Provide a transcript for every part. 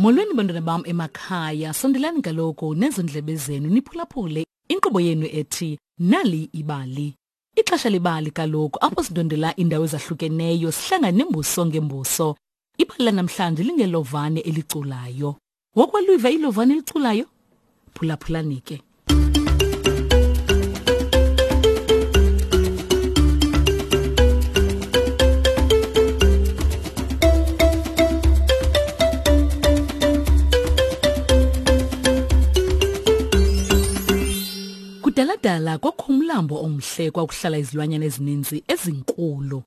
Molweni bantwana bam emakhaya, sondelani kaloku nezo ndlebe zenu niphulaphule inkqubo yenu ethi Nali Ibali. Ixesha lebali kaloku apho sindondela iindawo ezahlukeneyo sihlangane nembuso ngembuso. Ibali lanamhlanje lingelovane eliculayo. Wokwaluva ilovane eliculayo? Phulaphulani ke. Kudaladala kwakho umlambo omhle kwakuhlala izilwanyana ezininzi ezinkulu.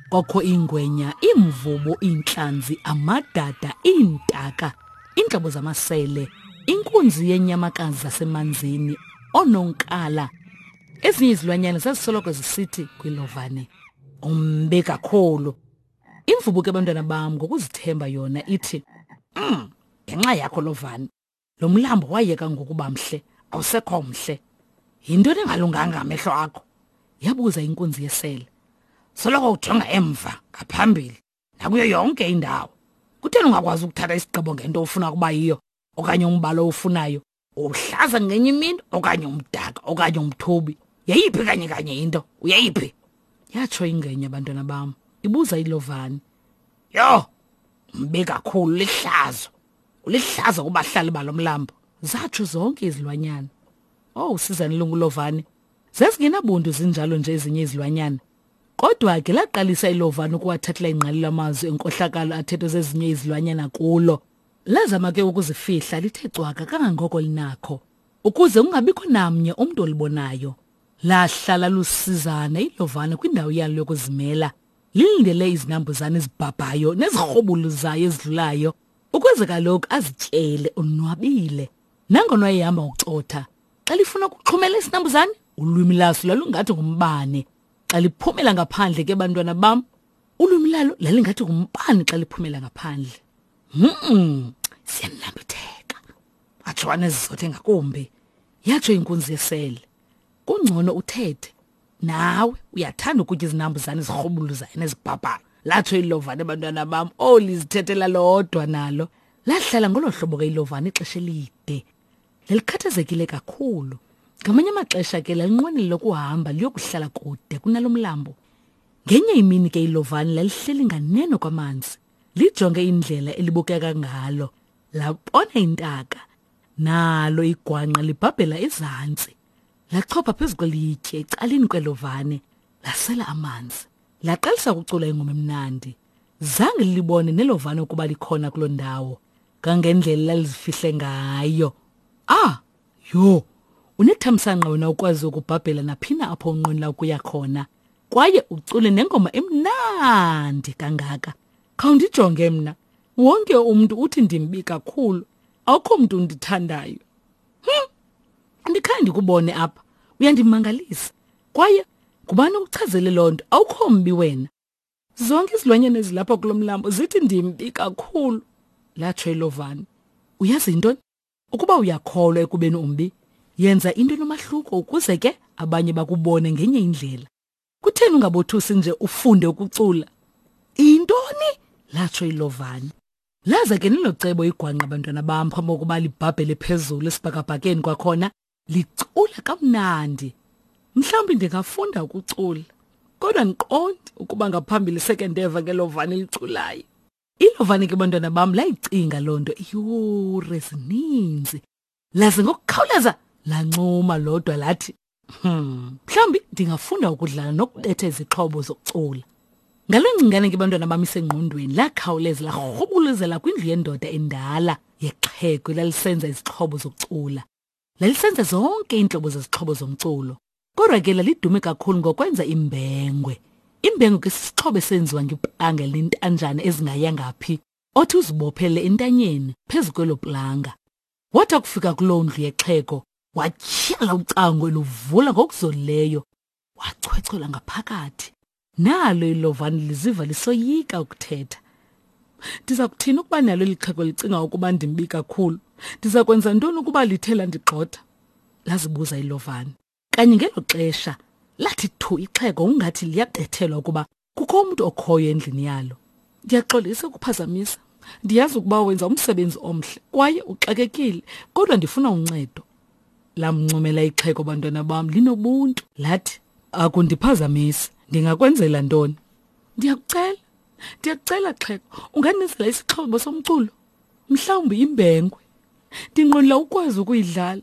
Kwakho iingwenya, iimvubu, iintlanzi, amadada, iintaka, iintlobo zamasele, inkunzi yenyamakazi zasemanzini, oononkala. Ezinye izilwanyana zazisoloko zisithi kwilovane, umbi kakhulu. Imvubu ke bantwana bam ngokuzithemba yona ithi, ngenxa yakho lovane. Lo mlambo wayeka ngokuba mhle, awusekho mhle. Yintoni engalunganga amehlo akho? Yabuza inkunzi yesele. Soloko ujonga emva, ngaphambili, nakuyo yonke indawo. Kutheni ungakwazi ukuthatha isigqibo ngento ofuna ukuba yiyo okanye umbala owufunayo? Uhlaza ngenye imini okanye umdaka okanye umthubi. Yeyiphi kanye kanye into? Uyeyiphi? Yatsho ingenya bantwana bam, ibuza ilovani. Yho, mbi kakhulu lihlazo. Ulihlazo kubahlali balo mlambo. Zatsho zonke izilwanyana. Oh, sizani lungulovane. Zazingenabuntu zinjalo nje ezinye izilwanyana. Kodwa ke laqalisa ilovane ukuwathathela ingqalelo amazwi enkohlakalo athethwe zezinye izilwanyana kulo. Lazama ke ukuzifihla lithe cwaka kangangoko linakho ukuze kungabikho namnye umntu olibonayo. Lahlala lusizana ilovane kwindawo yalo yokuzimela lilindele izinambuzane ezibhabhayo nezirhobuluzayo ezidlulayo ukuze kaloku azityele onwabile. Nangona wayehamba ngokucotha, xa lifuna ukuxhumela isinambuzane, ulwimi laso lalungathi ngumbane. Xa liphumela ngaphandle ke bantwana bam, ulwimi lalo lalingathi ngumbane xa liphumela ngaphandle. Siyanambitheka. Atsho anezizothe ngakumbi. Yatsho inkunzi yesele. Kungcono uthethe. Nawe uyathanda ukutya izinambuzane ezirhubuluzayo nezibhabhayo. Latsho ilovane bantwana bam. Oh, lizithethela lodwa nalo. Lahlala ngolo hlobo ke ilovane ixesha elide. Lalikhathazekile kakhulu. Ngamanye amaxesha ke lalinqwenela ukuhamba liyokuhlala kude kunalo mlambo. Ngenye imini ke ilovane lalihleli nganeno kwamanzi. Lijonge indlela elibukeka ngalo. Labona intaka. Nalo igwanqa libhabhela ezantsi. Lachopha phezu kwelitye ecaleni kwelovane, lasela amanzi. Laqalisa ukucula ingoma emnandi. Zange lilibone nelovane ukuba likhona kuloo ndawo. Kangendlela lalizifihle ngayo. Ah, yho, unethamsanqa wena ukwazi ukubhabhela naphina apho unqwenela ukuya khona. Kwaye ucule nengoma emnandi kangaka. Khawundijonge mna. Wonke umntu uthi ndimbi kakhulu. Akukho mntu undithandayo. Andikhange ndikubone apha. Uyandimangalisa. Kwaye ngubani okuchazele loo nto? Awukho mbi wena. Zonke izilwanyana ezilapha kulo mlambo zithi ndimbi kakhulu, latsho ilovane. Uyazi yintoni? Ukuba uyakholwa ekubeni umbi, yenza into enomahluko ukuze ke abanye bakubone ngenye indlela. Kutheni ungabothusi nje ufunde ukucula? Intoni? Latsho ilovane. Laza ke nelo cebo igwangqa bantwana bam phambi kokuba libhabhele phezulu esibhakabhakeni kwakhona licula kamnandi. Mhlawumbi ndingafunda ukucula, kodwa ndiqondi ukuba ngaphambili seke ndeva ngelovane eliculayo. Ilovane ke bantwana bam layicinga loo nto iiyure ezininzi. Laze ngokukhawuleza lancuma lodwa lathi, mhlawumbi ndingafunda ukudlala nokubetha izixhobo zokucula. Ngaloo ngcingane ke bantwana bam isengqondweni lakhawuleza larhubuluzela kwindlu yendoda endala yexhego elalisenza izixhobo zokucula. Lalisenza zonke iintlobo zezixhobo zomculo. Kodwa ke lalidume kakhulu ngokwenza imbengwe. Imbengwe ke sisixhobo esenziwa ngeplanga elintanjana ezingayanga phi, othi uzibophele entanyeni phezu kwelo planga. Wathi akufika kuloo ndlu yexhego, watyhala ucango eluvula ngokuzolileyo, wachwechwela ngaphakathi. Nalo ilovane liziva lisoyika ukuthetha. Ndiza kuthini ukuba nalo eli xhego licinga ukuba ndimbi kakhulu? Ndiza kwenza ntoni ukuba lithe landigxotha? Lazibuza ilovane. Kanye ngelo xesha lathi thu ixhego ungathi liyabethelwa ukuba kukho umntu okhoyo endlini yalo. Ndiyaxolisa ukuphazamisa. Ndiyazi ukuba wenza umsebenzi omhle kwaye uxakekile, kodwa ndifuna uncedo. Lamncomela ixhego bantwana bam linobuntu. Lathi, akundiphazamisi, ndingakwenzela ntoni? Ndiyakucela, ndiyakucela xhego, ungandenzela isixhobo somculo? Mhlawumbi imbengwe. Ndinqwenela ukwazi ukuyidlala.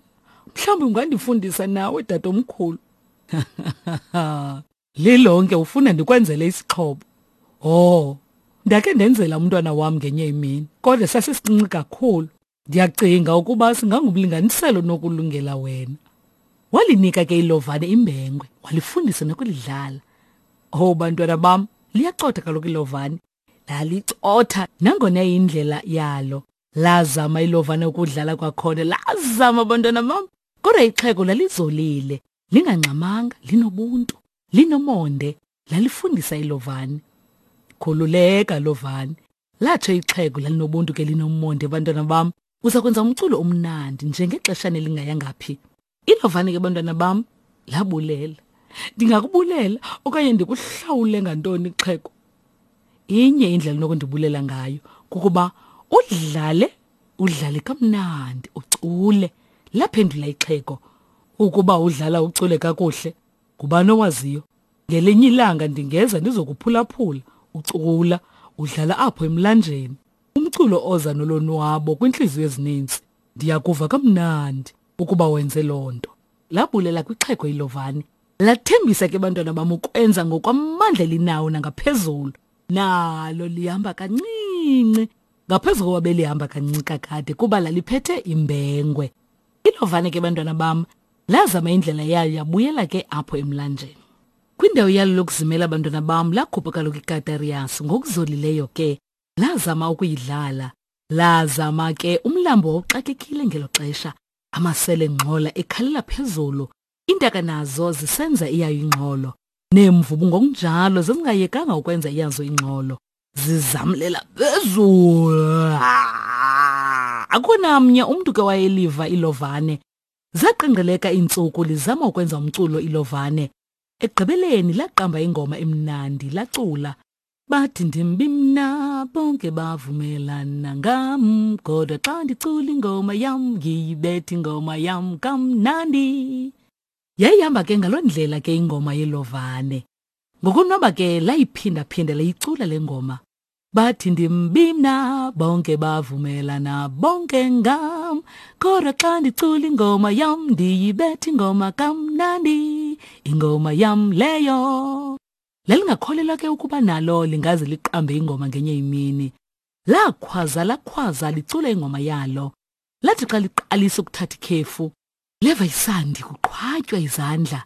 Mhlawumbi ungandifundisa nawe tatomkhulu. Lilonke ufuna ndikwenzele isixhobo. Oh, ndakhe ndenzela umntwana wam ngenye imini, kodwa sasisincinci kakhulu. Ndiyacinga ukuba singangumlinganiselo nokulungela wena. Walinika ke ilovane imbengwe, walifundisa nokulidlala. Oh bantwana bam, liyacotha kaloku ilovane. Lalicotha nangona indlela yalo. Lazama ilovane ukudlala kwakhona, lazama bantwana bam. Kodwa ixhego lalizolile, lingangxamanga, linobuntu, linomonde, lalifundisa ilovane. Khululeka lovane. Latsho ixhego lalinobuntu ke linomonde bantwana bam. Uza kwenza umculo omnandi njengexeshana elingayanga phi. Ilovane ke bantwana bam labulela. Ndingakubulela okanye ndikuhlawule ngantoni xhego? Inye indlela onokundibulela ngayo kukuba udlale udlale kamnandi ucule. Laphendula ixhego ukuba udlala ucule kakuhle ngubani owaziyo ngelinye ilanga ndingeza ndizokuphulaphula ucula udlala apho emlanjeni umculo oza nolonwabo kwintliziyo ezininzi ndiyakuva kamnandi ukuba wenze loo nto labulela kwixhego ilovane lathembisa ke bantwana bam ukwenza ngokwamandla elinawo nangaphezulu nalo lihamba kancinci ngaphezu koba belihamba kancinci kakade kuba laliphethe imbengwe ilovane ke bantwana bam lazama indlela yayo yabuyela ke apho emlanjeni kwindawo yalo lokuzimela abantwana bam lakhupha kaloku ikatariyasi ngokuzolileyo ke lazama ukuyidlala lazama ke umlambo wawuxakekile ngelo xesha amasele ngxola ekhalela phezulu iintaka nazo zisenza iyayo ingxolo neemvubu ngokunjalo zazingayekanga ukwenza iyazo ingxolo zizamlela phezulu akho namnye umntu ke wayeliva ilovane zaqengqeleka iintsuku lizama ukwenza umculo ilovane ekugqibeleni laqamba ingoma emnandi lacula bathi ndimbi mna bonke bavumelana ngam kodwa xa ndicula ingoma yam ngiyibetha ingoma yam kamnandi yayihamba ke ngaloo ndlela ke ingoma yelovane ngokonwaba ke layiphinda-phinda layicula le ngoma bathi ndimbi mna bonke bavumelana bonke ngam kodwa xa ndicula ingoma yam ndiyibetha ingoma kamnandi ingoma yam leyo Lalingakholelwa ke ukuba nalo lingaze liqambe ingoma ngenye imini. Lakhwaza lakhwaza licula ingoma yalo. Lathi xa liqalisa ukuthatha ikhefu, leva isandi kuqhwatywa izandla.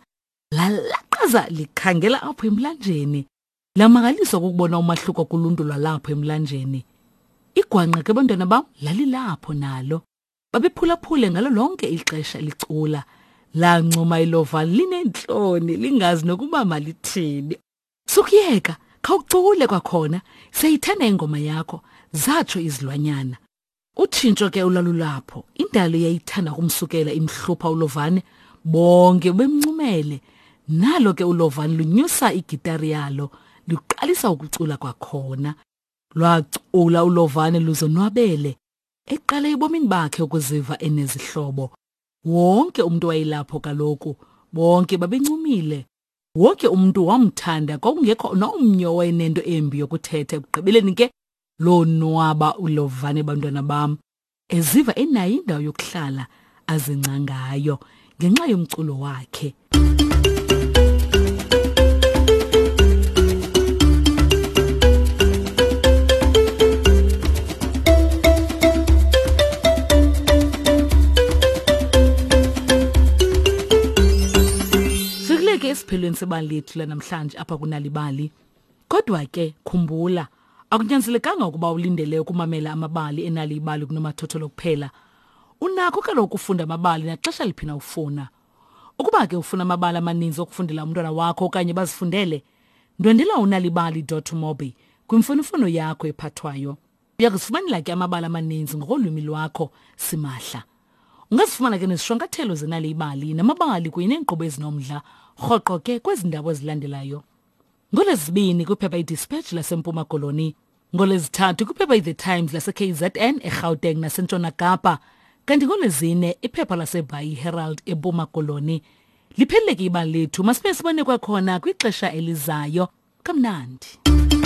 Lalaqaza likhangela apho emlanjeni. Lamangaliswa kukubona umahluko kuluntu lwalapho emlanjeni. Igwangqa ke bantwana bam lalilapho nalo. Babephulaphule ngalo lonke ixesha licula. Lancuma ilova lineentloni lingazi nokuba malithini. Sukuyeka, khawucule kwakhona, siyayithanda ingoma yakho, zatsho izilwanyana. Utshintsho ke olwalulapho, indalo yayithanda ukumsukela imhlupha uLovane, bonke bemncumele. Nalo ke uLovane lunyusa igitari yalo, luqalisa ukucula kwakhona. Lwacula uLovane luzonwabele, eqala ebomini bakhe ukuziva enezihlobo. Wonke umntu wayelapho kaloku, bonke babencumile. Wonke umntu wamthanda, kwakungekho nomnye owayenento embi yokuthetha. Ekugqibeleni ke lonwaba uLovane bantwana bam, eziva enayo indawo yokuhlala azingca ngayo ngenxa yomculo wakhe. Sikuleke esiphelweni sebali lethu lanamhlanje apha kunalibali. Kodwa ke khumbula akunyanzelekanga ukuba ulindele ukumamela amabali enali ibali kunomathotholo kuphela. Unakho kaloku ukufunda amabali naxesha liphi na ufuna. Ukuba ke ufuna amabali amaninzi okufundela umntwana wakho okanye bazifundele, ndwendela unalibali.mobi kwimfonomfono yakho ephathwayo. Uya kuzifumanela ke amabali amaninzi ngokolwimi lwakho simahla. Ungazifumana ke nezishwankathelo zenali ibali namabali kunye neenkqubo ezinomdla rhoqo ke kwezi ndawo ezilandelayo. NgoLwezibini kwiphepha iDispatch laseMpuma Koloni. NgoLwezithathu kwiphepha iThe Times laseKZN eGauteng naseNtshona Kapa, kanti ngoLwezine iphepha laseBhayi Herald eMpuma Koloni. Liphelile ke ibali lethu, masibe sibone kwakhona kwixesha elizayo. Kamnandi.